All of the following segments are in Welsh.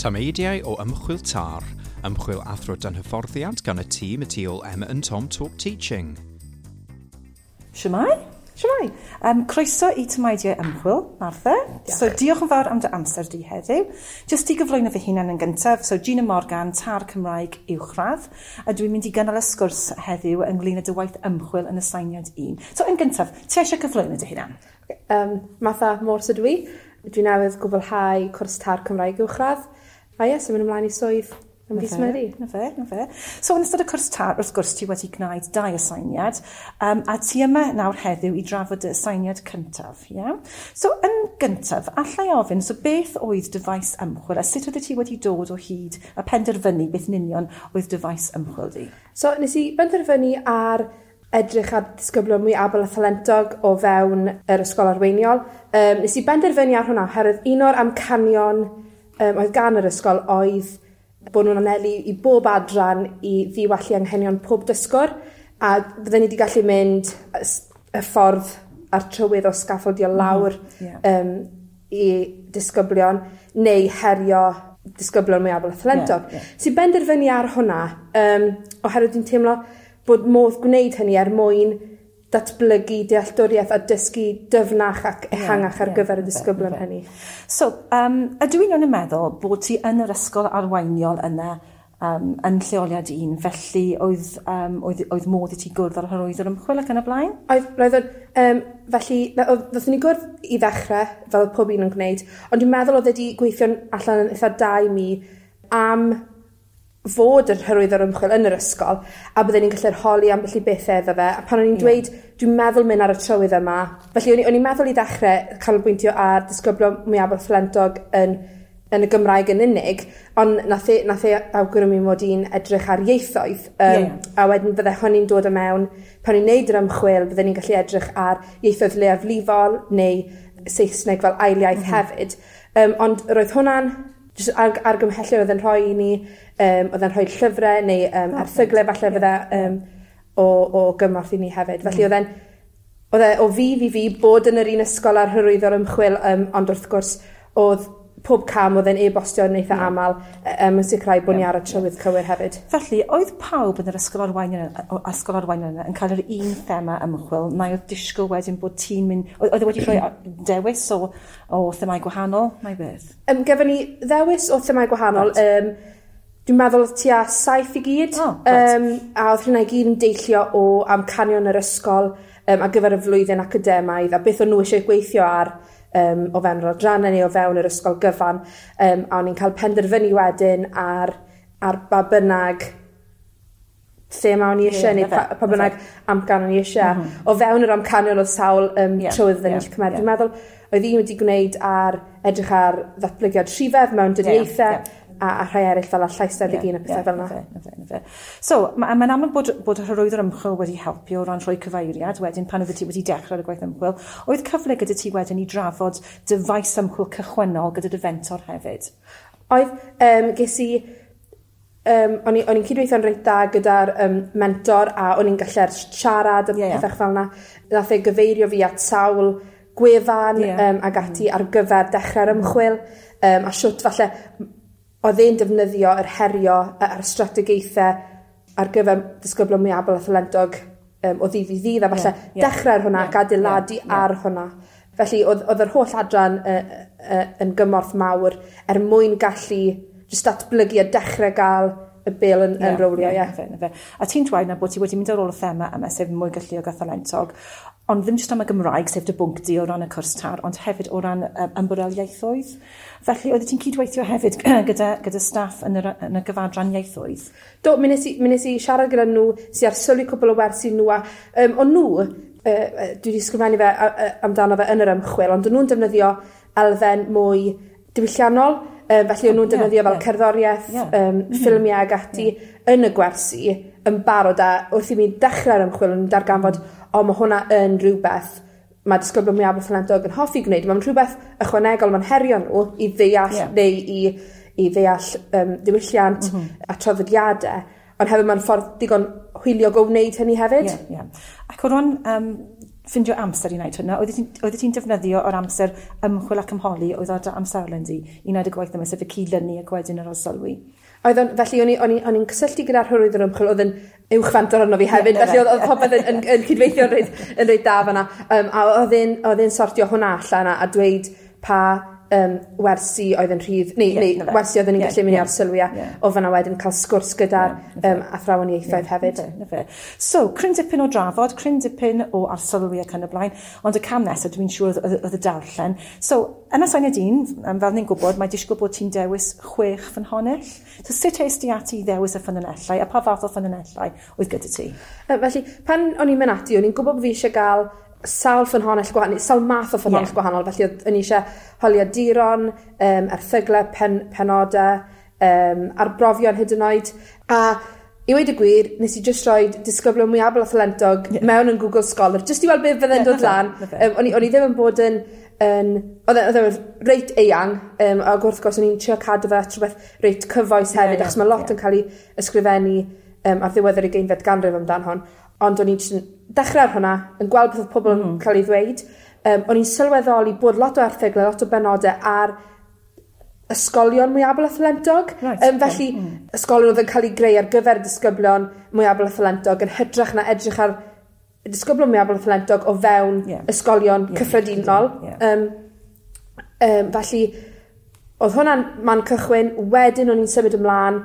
Tameidiau o Ymchwil TAR, ymchwil athro dan hyfforddiant gan y tîm y tu ôl Emma and Tom Talk Teaching. Shwmae? Shwmae? Croeso i Tameidiau Ymchwil, Martha. Diolch. So diolch yn fawr am dy amser di heddiw. Jyst i gyflwyno fy hunan yn gyntaf, so Gina Morgan, TAR Cymraeg Uwchradd, a dwi'n mynd i gynnal y sgwrs heddiw ynglyn â dy waith ymchwil yn aseiniad 1. So yn gyntaf, ti eisiau cyflwyno dy hunan? Martha Morse ydw i. Dwi newydd gwblhau cwrs TAR Cymraeg Uwchradd. A ie, so mynd ymlaen i swydd ym mis Medi. Na fe, na fe. So yn ystod y cwrs TAR, wrth gwrs, ti wedi gwneud 2 aseiniad, a ti yma nawr heddiw i drafod y aseiniad cyntaf, ie? So yn gyntaf, allai ofyn, so beth oedd dy faes ymchwil, a sut oeddet ti wedi dod o hyd a penderfynu beth yn union oedd dy faes ymchwil di? So nes i benderfynu ar edrych ar disgyblion mwy abl a thalentog o fewn yr ysgol arweiniol. Nes i benderfynu ar hwnna oherwydd un o'r amcanion oedd gan yr ysgol oedd bod nhw'n anelu i bob adran i ddiwallu anghenion pob dysgwr, a fydden ni wedi gallu mynd y ffordd a'r trywydd o sgaffaldio lawr i disgyblion neu herio disgyblion mwy abl a thalentog. Sy'n benderfynu ar hwnna, oherwydd dwi'n teimlo bod modd gwneud hynny er mwyn datblygu dealltwriaeth a dysgu dyfnach ac ehangach ar gyfer y disgyblion hynny. So, ydw i'n iawn yn meddwl bod ti yn yr ysgol arweiniol yna yn lleoliad un, felly oedd modd i ti gwrdd â'r hyrwyddwr ymchwil ac yn y blaen? Oedd, roedd o'n, felly, na, oedd, ddothon ni gwrdd i ddechrau, fel oedd pob un yn gwneud, ond dwi'n meddwl oedd wedi gweithio'n allan yn eitha da i mi am fod yr hyrwyddwr ymchwil yn yr ysgol, a bydden ni'n gallu'r holi ambell i bethau iddo fe, a pan o'n i'n dweud, dwi'n meddwl mynd ar y trywydd yma, felly o'n i'n meddwl i ddechrau canolbwyntio ar disgyblion mwyaf thalentog yn y Gymraeg yn unig, ond nath e awgrymu mod i'n edrych ar ieithoedd, a wedyn fydde hynny'n dod o mewn, pan o'n i'n neud yr ymchwil, bydden ni'n gallu edrych ar ieithoedd leiafrifol neu Saesneg fel ail iaith hefyd. Ond roedd hwnna'n jyst argymhellion oedd yn rhoi i ni, oedd yn rhoi llyfrau neu erthyglau falle fydde o gymorth i ni hefyd. Felly oedd e o fudd i fi bod yn yr un ysgol ar hyrwyddo'r ymchwil, ond wrth gwrs oedd pob cam oedd e'n e-bostio yn eitha aml, yn sicrhau bod ni ar y trywydd cywir hefyd. Felly, oedd pawb yn yr ysgol arweiniol yna yn cael yr un thema ymchwil, neu oedd disgwyl wedyn bod ti'n mynd... Oedd e wedi rhoi dewis o themâu gwahanol, neu beth? Gefon ni ddewis o themâu gwahanol. Dwi'n meddwl oedd tua 7 i gyd. Oh, right. A oedd hynna i gyd yn deillio o amcanion yr ysgol, ar gyfer y flwyddyn academaidd, a beth o'n nhw eisiau gweithio ar o fewn yr adrannau neu o fewn yr ysgol gyfan, a o'n i'n cael penderfynu wedyn ar ba bynnag thema o'n i eisiau, neu pa bynnag amcan o'n i eisiau. O fewn yr amcanion oedd sawl trywydd oedden ni'n cymryd. Dwi'n meddwl oedd un wedi gwneud ar edrych ar ddatblygiad rhifedd mewn dyniaethau, a rhai eraill fel llais 21 a pethau fel yna. So, mae'n amlwg bod yr hyrwyddwr ymchwil wedi helpu o ran rhoi cyfeiriad wedyn pan oeddet ti wedi dechrau ar y gwaith ymchwil. Oedd cyfle gyda ti wedyn i drafod dy faes ymchwil cychwynnol gyda dy fentor hefyd? Oedd, ges i, o'n i'n cydweithio'n reit dda gyda'r mentor, a o'n i'n gallu siarad a pethau fel yna. Nath e gyfeirio fi at sawl gwefan, ag ati ar gyfer dechrau'r ymchwil, a siwt falle oedd e'n defnyddio yr herio a'r strategaethau ar gyfer disgyblion mwy abl a thalentog, o ddydd i ddydd, a falle dechrau ar hwnna ac adeiladu ar hwnna. Felly oedd yr holl adran yn gymorth mawr er mwyn gallu jyst datblygu a dechrau gael y bêl yn rowlio, ie. Na fe. A ti'n dweud na bod ti wedi mynd ar ôl y thema yma, sef mwy galluog a thalentog, ond ddim jyst am y Gymraeg, sef dy bwnc di o ran y cwrs TAR, ond hefyd o ran ymbarel ieithoedd. Felly, oeddet ti'n cydweithio hefyd gyda staff yn y gyfadran ieithoedd? Do, mi nes i siarad gyda nhw, sy ar sylwi cwpl o wersi nhw, a o'n nhw, dwi wedi sgrifennu fe amdano fe yn yr ymchwil, ond o'n nhw'n defnyddio elfen mwy diwylliannol, felly o'n nhw'n defnyddio fel cerddoriaeth, ffilmiau ag ati yn y gwersi yn barod, a wrth i mi dechrau'r ymchwil o'n i'n darganfod, o, mae hwnna yn rhywbeth mae disgyblion mwyaf thalentog yn hoffi gwneud. Mae'n rhywbeth ychwanegol, mae'n herio nhw i ddeall neu i ddeall diwylliant a traddodiadau, ond hefyd mae'n ffordd digon hwyliog o wneud hynny hefyd. Ie, ie. Ac o ran ffindio amser i wneud hwnna? Oeddet ti'n defnyddio o'r amser ymchwil ac ymholi oedd ar dy amserlen di i wneud y gwaith yma, sef y cydlynu ac wedyn yr arsylwi? Felly o'n i'n cysylltu gyda'r hyrwyddwr ymchwil, oedd yn uwch fentor arno fi hefyd, felly oedd popeth yn cydweithio yn reit dda fanna. A oedd e'n sortio hwnna allan a dweud pa wersi oedd yn rhydd, neu wersi oedd yn ni'n gallu mynd i arsylwi a o fanna wedyn cael sgwrs gyda'r athrawon ieithoedd hefyd. Na fe. So, cryn dipyn o drafod, cryn dipyn o arsylwi ac yn y blaen, ond y cam nesaf dwi'n siŵr oedd y darllen. So, yn aseiniad 1, fel ni'n gwybod, mae disgwyl bod ti'n dewis 6 ffynhonnell. So, sut es di ati i ddewis y ffynhonnellau, a pa fath o ffynhonnellau oedd gyda ti? Felly, pan o'n i'n mynd ati, o'n i'n gwybod bod fi eisiau gael sawl ffynhonnell gwahanol, sawl math o ffynhonnell gwahanol, felly o'n i eisiau holiaduron, erthyglau, penodau, arbrofion hyd yn oed. A i weud y gwir, nes i just rhoi disgyblion mwy abl a thalentog mewn yn Google Scholar, just i weld beth fydde'n dod lan. O'n i ddim yn bod yn oedd e'n reit eang, ac wrth gwrs o'n i'n trio cadw fe at rhywbeth reit cyfoes hefyd, achos mae lot yn cael ei ysgrifennu ar ddiwedd yr 20fed ganrif amdan hon. Ond o'n i'n dechrau ar hwnna, yn gweld beth oedd pobl yn cael ei ddweud. O'n i'n sylweddoli bod lot o erthyglau, lot o benodau ar ysgolion mwy abl a thalentog. Felly, ysgolion oedd yn cael ei greu ar gyfer disgyblion mwy abl a thalentog yn hytrach na edrych ar disgyblion mwy abl a thalentog o fewn ysgolion cyffredinol. Felly, oedd hwnna'n man cychwyn. Wedyn o'n i'n symud ymlaen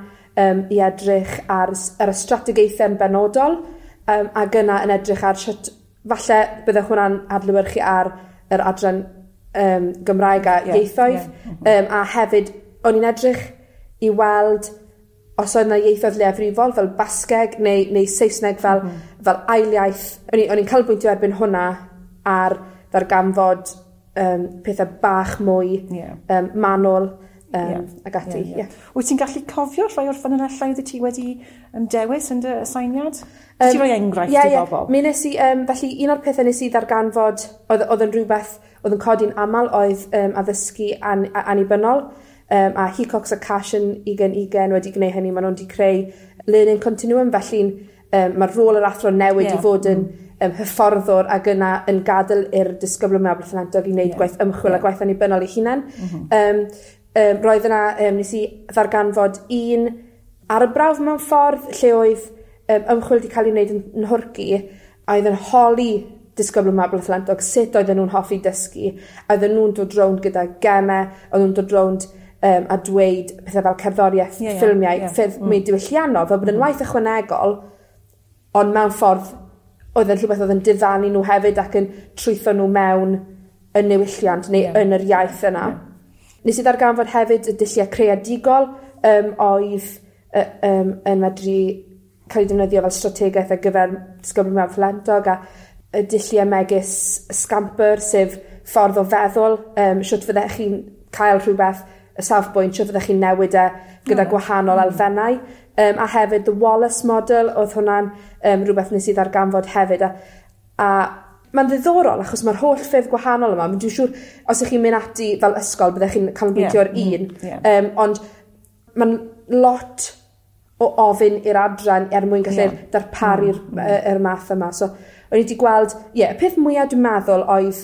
i edrych ar y strategaethau yn benodol, ac yna yn edrych ar sut falle bydde hwnna'n adlewyrchu ar yr adran Gymraeg a ieithoedd. A hefyd, o'n i'n edrych i weld os oedd yna ieithoedd leiafrifol fel Basgeg neu Saesneg fel ail iaith. O'n i'n canolbwyntio erbyn hwnna ar ddarganfod pethau bach mwy manwl ac ati. Wyt ti'n gallu cofio rhai o'r ffynonellau oedd ti wedi dewis yn dy aseiniad? Ti roi enghraifft i bobl? Mi nes i, felly un o'r pethau nes i ddarganfod oedd yn rhywbeth oedd yn codi'n aml oedd addysgu annibynnol, a Hecox a Cash yn 2020 wedi gwneud hynny, maen nhw'n wedi creu learning continuum, felly mae'r rôl yr athro newid i fod yn hyfforddwr ac yna yn gadael i'r disgyblion mwy abl a thalentog i wneud gwaith ymchwil a gwaith annibynnol eu hunain. Roedd yna, nes i ddarganfod un arbrawf mewn ffordd lle oedd ymchwil wedi cael ei wneud yn Nhwrci, a oedd yn holi disgyblion mwy abl a thalentog sut oedden nhw'n hoffi dysgu, a oedden nhw'n dod rownd gyda gemau, oedden nhw'n dod rownd a dweud pethau fel cerddoriaeth, ffilmiau, ffyrdd mwy diwylliannol, fel bod yn waith ychwanegol, ond mewn ffordd oedd yn rhywbeth oedd yn diddanu nhw hefyd ac yn trwytho nhw mewn y niwylliant neu yn yr iaith yna. Nes i ddarganfod hefyd y dulliau creadigol oedd yn medru cael ei defnyddio fel strategaeth ar gyfer disgyblion mwy abl a thalentog, a y dulliau megis Scamper, sef ffordd o feddwl, sut fyddech chi'n cael rhywbeth, y safbwynt, sut fyddech chi'n newid e gyda gwahanol elfennau. A hefyd the Wallace Model, oedd hwnna'n rhywbeth nes i ddarganfod hefyd. A mae'n ddiddorol achos mae'r holl ffyrdd gwahanol yma. Dwi'n siŵr os ych chi'n mynd ati fel ysgol byddech chi'n canolbwyntio ar un. Ond mae'n lot o ofyn i'r adran er mwyn gallu darparu'r yr math yma. So, o'n i wedi gweld, y peth mwyaf dwi'n meddwl oedd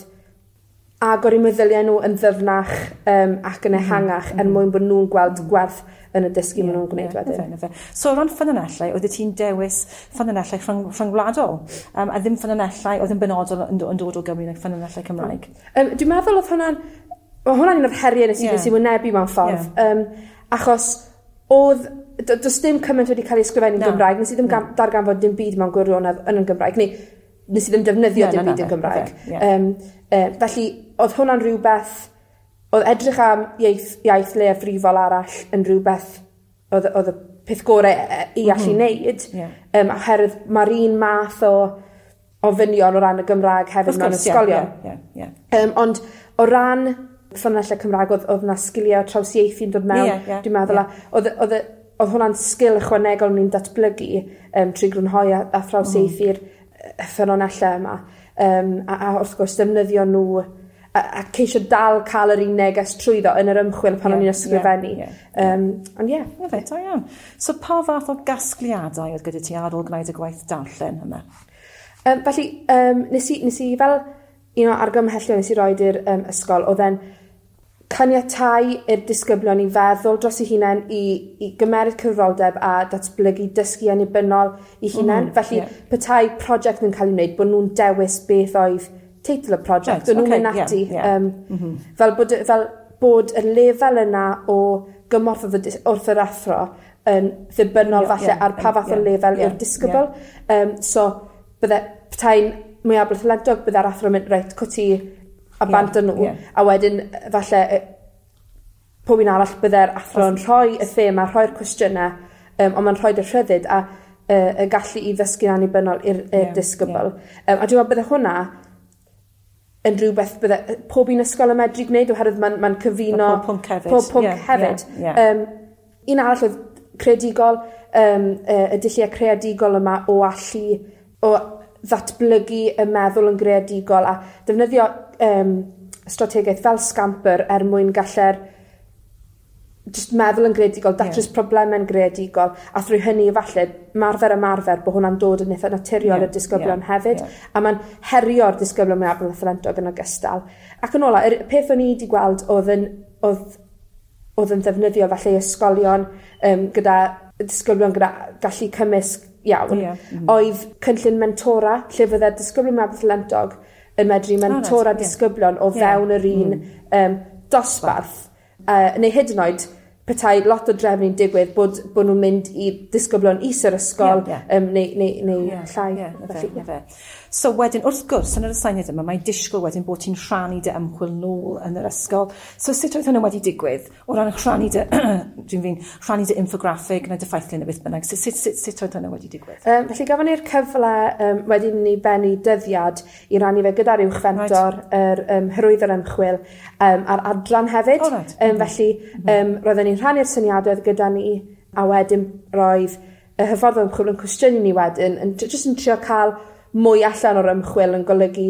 agor eu meddyliau nhw yn ddyfnach ac yn ehangach er mwyn bod nhw'n gweld gwerth yn y dysgu maen nhw'n gwneud wedyn. So o ran ffynonellau, oeddet ti'n dewis ffynonellau rhyngwladol, a ddim ffynonellau oedd yn benodol yn dod o Gymru neu ffynonellau Cymraeg? Dwi'n meddwl oedd hwnna'n un o'r heriau nes i wynebu mewn ffordd, achos oedd, does dim cymaint wedi cael ei ysgrifennu'n Gymraeg, nes i ddim darganfod dim byd mewn gwirionedd yn y Gymraeg, neu nes i ddim defnyddio dim byd yn Gymraeg. Felly, oedd hwnna'n rhywbeth, oedd edrych am iaith leiafrifol arall yn rhywbeth oedd y peth gorau i allu wneud, oherwydd mae'r un math o ofynion o ran y Gymraeg hefyd mewn ysgolion. Ond o ran ffynonellau Cymraeg, oedd yna sgiliau trawsieithu'n dod mewn, dwi'n meddwl, oedd hwnna'n sgil ychwanegol ni'n datblygu trwy grynhoi a thrawsieithu'r ffynonellau yma. A wrth gwrs defnyddio nhw a ceisio dal cael yr un neges trwyddo yn yr ymchwil pan o'n i'n ysgrifennu. Ond ie. Fe, da iawn. So pa fath o gasgliadau oedd gyda ti ar ôl gwneud y gwaith darllen yma? Felly, nes i fel un o argymhellion nes i roed i'r ysgol, oedd e'n caniatáu i'r disgyblion i feddwl dros eu hunain, i gymeryd cyfrifoldeb a datblygu dysgu annibynnol eu hunain. Felly, petai prosiect yn cael ei wneud, bod nhw'n dewis beth oedd teitl y prosiect, right, nhw'n mynd ati. Fel bod y lefel yna o gymorth wrth yr athro yn ddibynnol falle ar pa fath o lefel yw'r disgybl. So, bydde petai'n mwyafrif thalentog, bydde'r athro yn mynd, reit, cwti a bant â nhw, a wedyn falle pob un arall bydde'r athro yn rhoi y thema, rhoi'r cwestiynau, ond mae'n rhoi y rhyddid a y gallu i ddysgu'n annibynnol i'r disgybl. A dwi'n meddwl bydde hwnna yn rhywbeth bydde pob un ysgol yn medru gwneud, oherwydd mae'n cyfuno pob pwnc hefyd. Pob pwnc hefyd. Un arall oedd creadigol, y dulliau creadigol yma o allu, o ddatblygu y meddwl yn greadigol a defnyddio strategaeth fel Scamper er mwyn gallu'r just meddwl yn greadigol, datrys problemau'n greadigol, a thrwy hynny falle ymarfer bod hwnna'n dod yn eitha naturiol i'r disgyblion hefyd, a mae'n herio'r disgyblion mwyaf a thalentog yn ogystal. Ac yn ola, y peth o'n i wedi gweld oedd yn ddefnyddio falle ysgolion gyda disgyblion gyda gallu cymysg iawn, oedd cynllun mentora, lle fydde'r disgyblion mwyaf thalentog yn medru mentora disgyblion o fewn yr un dosbarth. Neu hyd yn oed, petai lot o drefnu'n digwydd bod nhw'n mynd i disgyblion is yr ysgol neu llai. Felly. So wedyn, wrth gwrs, yn yr aseiniad yma, mae disgwyl wedyn bod ti'n rhannu dy ymchwil nôl yn yr ysgol. So sut oedd hwnna wedi digwydd? O ran rhannu dy, rhannu dy infograffig neu dy ffeithlun neu beth bynnag. Sut oedd hwnna wedi digwydd? Felly gafon ni'r cyfle wedyn ni bennu dyddiad i rannu fe gyda'r uwch fentor, yr hyrwyddo'r ymchwil a'r adran hefyd. Oh, right. Felly, roedden ni'n rhannu'r syniadau gyda ni, a wedyn roedd y hyfforddwr ymchwil yn cwestiynu ni wedyn, yn jyst yn trio cael mwy allan o'r ymchwil yn golygu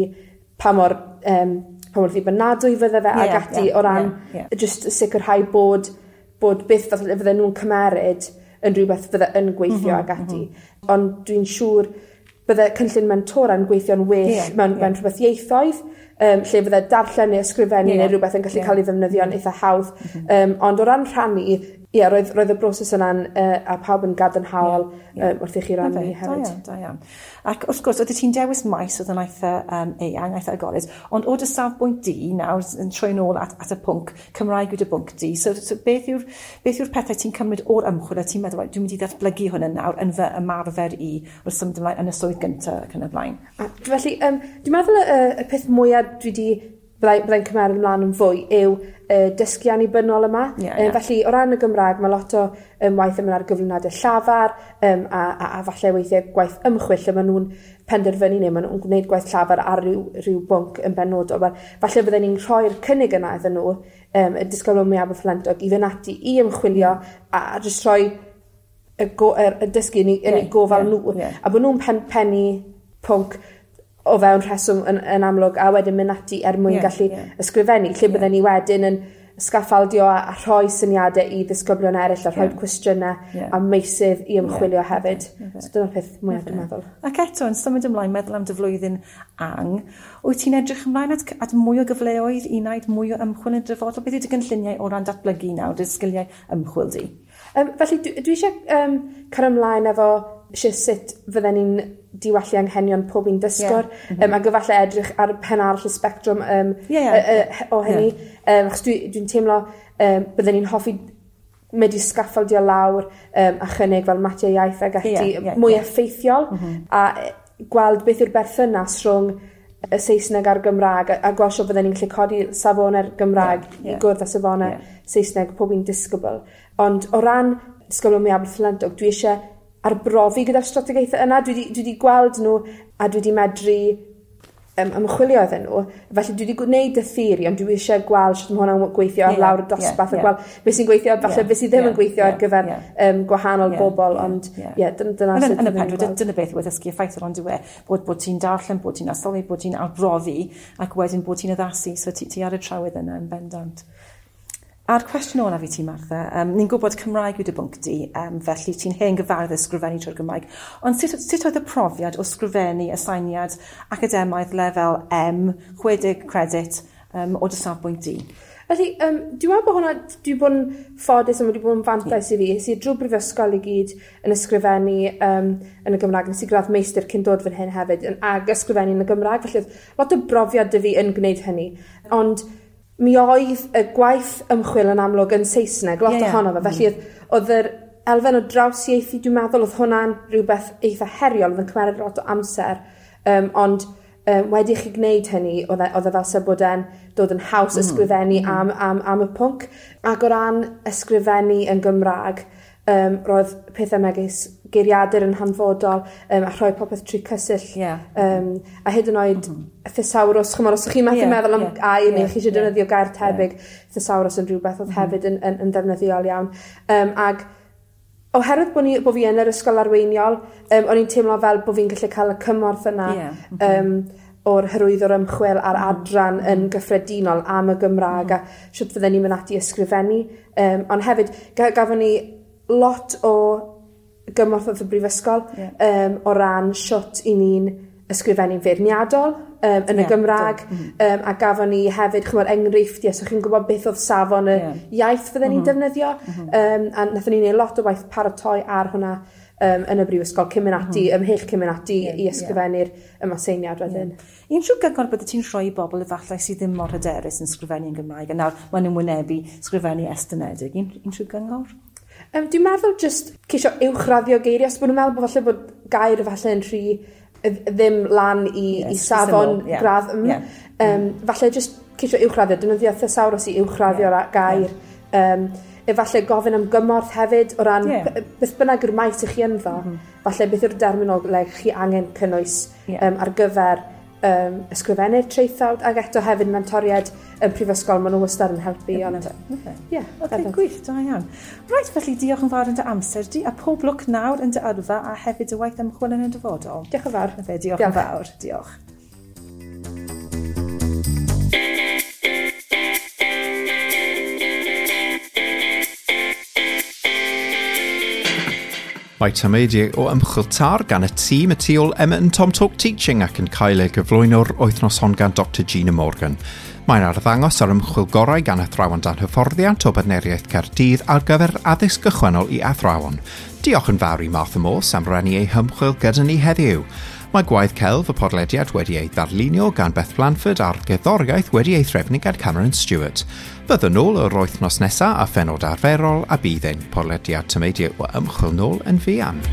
pa mor ddibynadwy fydde fe ag ati o ran just sicrhau bod beth fydde nhw'n cymeryd yn rhywbeth fydde yn gweithio ag ati. Ond dwi'n siŵr bydde cynllun mentora yn gweithio'n well mewn rhywbeth ieithoedd, lle fydde darllen neu ysgrifennu neu rhywbeth yn gallu cael ei ddefnyddio'n eitha hawdd. Ond o ran rhannu, roedd y broses yna'n a pawb yn gadarnhaol wrth i chi rannu hefyd. Da iawn. Ac wrth gwrs, oeddet ti'n dewis maes oedd yn eitha eang, eitha agored, ond o dy safbwynt di nawr, yn troi nôl at y pwnc, Cymraeg yw dy bwnc di, so beth yw'r pethau ti'n cymryd o'r ymchwil a ti'n meddwl, dwi'n mynd i ddatblygu hwn yn nawr yn fy ymarfer i wrth symud ymlaen yn y swydd gyntaf ac yn y blaen? Felly, dwi'n meddwl y peth mwyaf dwi wedi byddai'n cymryd ymlaen yn fwy yw dysgu annibynnol yma. Felly, o ran y Gymraeg, mae lot o waith yn mynd ar gyflwyniadau llafar a falle weithiau gwaith ymchwil lle maen nhw'n penderfynu neu maen nhw'n gwneud gwaith llafar ar ryw bwnc yn benodol. Wel, falle bydden ni'n rhoi'r cynnig yna iddyn nhw, y disgyblion mwyaf thalentog, i fynd ati i ymchwilio a jyst rhoi y dysgu yn eu gofal nhw. A bod nhw'n pennu pwnc o fewn rheswm yn amlwg, a wedyn mynd ati er mwyn gallu ysgrifennu, lle bydden ni wedyn yn sgaffaldio a rhoi syniadau i ddisgyblion eraill a rhoi cwestiynau a meysydd i ymchwilio hefyd. So dyna'r peth mwyaf dwi'n meddwl. Ac eto, yn symud ymlaen, meddwl am dy flwyddyn ang, wyt ti'n edrych ymlaen at mwy o gyfleoedd i wneud mwy o ymchwil yn y dyfodol? Beth yw dy gynlluniau o ran datblygu nawr, dy sgiliau ymchwil di? Felly, dwi eisiau cario ymlaen efo sut fydden ni'n diwallu anghenion pob un dysgwr, ac efallai edrych ar pen arall y sbectrwm o hynny. Achos dwi'n teimlo bydden ni'n hoffi medru sgaffaldio lawr a chynnig fel matiau iaith ag ati mwy effeithiol, a gweld beth yw'r berthynas rhwng y Saesneg a'r Gymraeg, a gweld sut fydden ni'n gallu codi safonau'r Gymraeg i gwrdd â safonau Saesneg pob un disgybl. Ond o ran disgyblion mwyaf thalentog, dwi eisiau arbrofi gyda'r strategaethau yna. Dwi wedi gweld nhw a dwi wedi medru ymchwilio iddyn nhw. Felly dwi wedi gwneud y theori, ond dwi eisiau gweld sut mae hwnna'n gweithio ar lawr y dosbarth a gweld beth sy'n gweithio, falle beth sydd ddim yn gweithio ar gyfer gwahanol bobl, ond dyna sut yn y pen draw, dyna beth yw addysgu effeithiol, ond yw e, bod ti'n darllen, bod ti'n arsylwi, bod ti'n arbrofi, ac wedyn bod ti'n addasu, so ti ar y trywydd yna yn bendant. A'r cwestiwn olaf i ti, Martha, ni'n gwybod Cymraeg yw dy bwnc di, felly ti'n hen gyfarwydd ysgrifennu trwy'r Gymraeg, ond sut oedd y profiad o sgrifennu aseiniad academaidd lefel M, 60 credit, o dy safbwynt di? Felly, dwi'n meddwl bod hwnna, dwi bod yn ffodus a wedi bod yn fantais i fi. Es i drwy brifysgol i gyd yn ysgrifennu yn y Gymraeg. Nes i gradd meistr cyn dod fan hyn hefyd, ag ysgrifennu yn y Gymraeg. Felly, oedd lot o brofiad 'da fi yn gwneud hynny. Ond mi oedd y gwaith ymchwil yn amlwg yn Saesneg, lot ohono fe. Felly, oedd yr elfen o drawsieithu, dwi'n meddwl, oedd hwnna'n rhywbeth eitha heriol, oedd yn cymryd lot o amser. Ond wedi i chi gwneud hynny, oedd e fel se bod e'n dod yn haws ysgrifennu am y pwnc. Ac o ran ysgrifennu yn Gymraeg, roedd pethau megis geiriadur yn hanfodol, a rhoi popeth trwy Cysill. A hyd yn oed thesawrws, chymod, os ydych chi'n methu meddwl am air neu chi eisiau defnyddio gair tebyg, thesawrws yn rhywbeth oedd hefyd yn ddefnyddiol iawn. Ag oherwydd bod fi yn yr ysgol arweiniol, o'n i'n teimlo fel bod fi'n gallu cael y cymorth yna o'r hyrwyddwr ymchwil a'r adran yn gyffredinol am y Gymraeg a sut fydden ni'n mynd ati ysgrifennu. Ond hefyd, gafon ni lot o gymorth wrth y brifysgol o ran sut i ni'n ysgrifennu'n feirniadol yn y Gymraeg, a gafon ni hefyd, chymod, enghreifftiau, so chi'n gwybod beth oedd safon y iaith fydden ni'n defnyddio, a nathon ni wneud lot o waith paratoi ar hwnna yn y brifysgol cyn mynd ati, ymhell cyn mynd ati i ysgrifennu'r ymaseiniad wedyn. Unrhyw gyngor bydde ti'n rhoi i bobl efallai sydd ddim mor hyderus yn sgrifennu yn Gymraeg, a nawr maen nhw'n wynebu sgrifennu estynedig, unrhyw gyngor? Dwi'n meddwl jyst ceisio uwchraddio geiriau, os bod nhw'n meddwl bod falle bod gair falle yn rhy ddim lan i safon gradd M. Falle jyst ceisio uwchraddio, defnyddio thesawrws i uwchraddio'r gair. Efallai gofyn am gymorth hefyd o ran beth bynnag yw'r maes i chi ynddo, falle beth yw'r derminoleg chi angen cynnwys ar gyfer ysgrifennu'r traethawd, ac eto hefyd mentoriaid yn prifysgol, maen nhw wastad yn helpu. Ond, ie, Oce, gwych, da iawn. Reit, felly diolch yn fawr yn dy amser di, a pob lwc nawr yn dy yrfa a hefyd dy waith ymchwil yn y dyfodol. Diolch yn fawr. Fe, diolch yn fawr, diolch. Mae tameidiau o ymchwil TAR gan y tîm y tu ôl Emma and Tom Talk Teaching ac yn cael ei gyflwyno'r wythnos hon gan Dr Gina Morgan. Mae'n arddangos ar ymchwil gorau gan athrawon dan hyfforddiant o Bartneriaeth Caerdydd ar gyfer addysg gychwynnol i athrawon. Diolch yn fawr i Martha Morse am rannu ei hymchwil gyda ni heddiw. Mae gwaith celf y podlediad wedi ei ddarlunio gan Beth Blanford a'r gerddoriaeth wedi ei threfnu gan Cameron Stewart. Byddwn nôl yr wythnos nesaf a phenod arferol a bydd ein podlediad tameidiau o ymchwil nôl yn fuan.